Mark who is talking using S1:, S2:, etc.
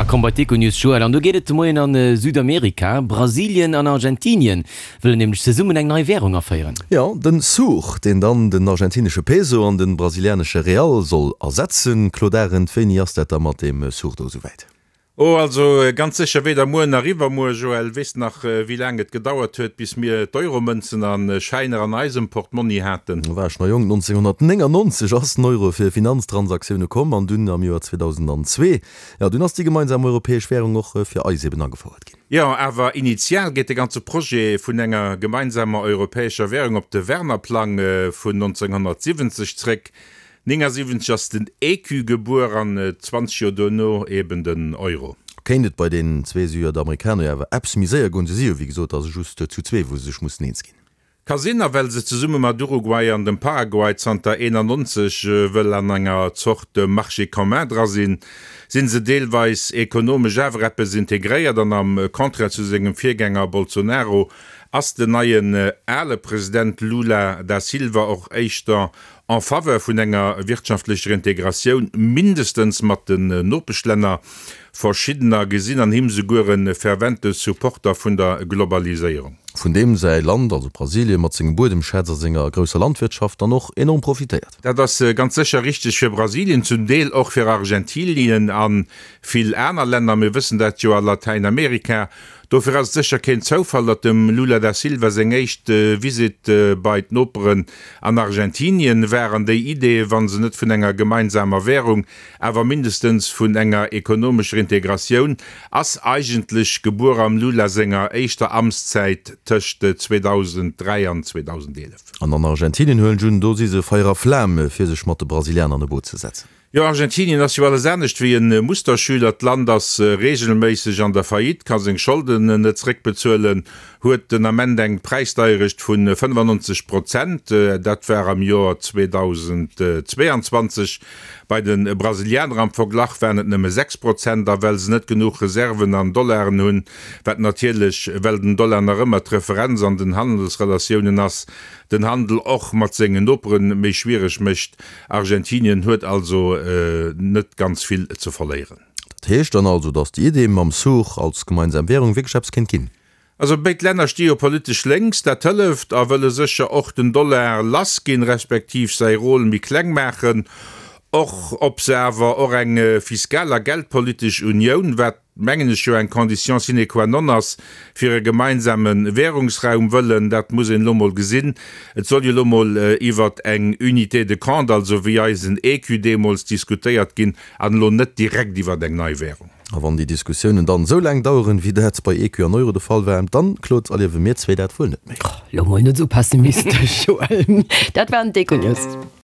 S1: komm bei d'Econews, Joël. An do geet et de Moien a Südamerika. Brasilien an Argentinien wëllen nämlech zesummen eng nei Wärung aféieren.
S2: Jo, den Sur, deen dann den argentinesche Peso an den brasilianesche Real soll ersetzen. Claude Arend, wéini ass dat da mat deem Sur do esouwäit?
S3: Oh, also ganz sécher weder muer nach iwwermuer. Joël, weess de nach, wéi laang et gedauert huet, bis mir d'Euromënzen a Schäiner an eisem Portmonni haten?
S2: Do war ech nach jonk, 1999 ass den Euro fir Finanztransaktioune komm an dunn am Joer 2002, jo, dunn ass déi gemeinsam europäesch Währung och fir eis eben agefouert ginn.
S3: Jo, awer initial geet de ganze Projet vun enger gemeinsamer europäescher Währung op de Werner-Plang vun 1970 zréck. 79 ass den Ecu gebuer an 20 Joer duerno eben den Euro.
S2: Kéint et bei den zwee Südamerikaner jo awer eppes méi séier goen. Se si jo wéi gesot also just zu zwee wou se sech mussen eens ginn.
S3: Ka sinn, a well se zesumme mat Uruguay an dem Paraguay zanter 91 wëll an enger Zort Marché commun dra sinn, si se deelweis ekonomesch awer eppes integréiert an am Contraire zu sengem Virgänger Bolsonaro ass den neien ale President Lula da Silva och éischter en faveur vun enger wirtschaftlecher Integratioun, mindestens mat den Nopeschlänner. Verschiddener gesinn an him souguer e fervente Supporter vun der Globaliséierung.
S2: Vun deem säi Land, also Brasilien, mat sengem Buedemschätz a senger grousser Landwirtschaft dann och enorm profitéiert.
S3: Dat ass ganz sécher richteg fir Brasilien, zum Deel och fir Argentinien a vill aner Länner. Mir wëssen dat jo a Latäinamerika. Dofir ass et sécher keen Zoufall, datt dem Lula da Silva seng éischt Visitt bei d'Noperen an Argentinien war an déi Idee, wa se net vun enger gemeinsamer Währung, awer mindestens vun enger ekonomescher Integratioun, ass eigentlech gebuer am Lula senger éischter Amtszäit tëscht 2003 an 2011.
S2: An an Argentinien huelen ech un, do si se Feier a Flam, fir sech mat de Brasilianer an e Boot ze setzen.
S3: Jo, Argentinien ass jo alles anescht wéi e Musterschüler. D'Land ass reegelméisseg an der Faillite, ka seng Scholden net zeréckbezuelen, huet den Ament eng Präisdeierecht vu 95 Prozent, dat war am Joer 2022. Bei de Brasilianer am Verglach waren et nëmme 6 Prozent. A well se net genuch Reserven an Dollaren hunn, wat natierlech, well den Dollar nach ëmmer d'Referenz an den Handelsrelatiounen ass, den Handel och mat sengen Nopere méi schwiereg mécht, Argentinien huet also net ganz vill ze verléieren.
S2: Dat heescht dann also, datt déi Idee mam Sur als gemeinsam Währung wierklech eppes kéint ginn?
S3: Also béid Länner sti jo politesch lénks, dat hëlleft, a wëlle sécher och den Dollar lass ginn, respektiv säi Rôle méi kleng maachen. Och ob se awer och eng fiskal a geldpolitesch Unioun, wat mengen ech, jo eng Condition sine qua non ass fir e gemeinsame Währungsraum wëllen, dat muss een elo mol gesinn. Et soll jo elo mol iwwert eng Unité de compte, also wéi eisen Ecu deemools, diskutéiert ginn an elo net direkt iwwert eng nei Währung.
S2: A wann déi Diskussiounen dann esou laang daueren, wéi dat bei Ecu an Euro de Fall war, dann, Claude, erliewe mir zwee dat wuel net méi.
S4: Elo mol net esou pessimistesch, Joël. Dat waren d'Econews.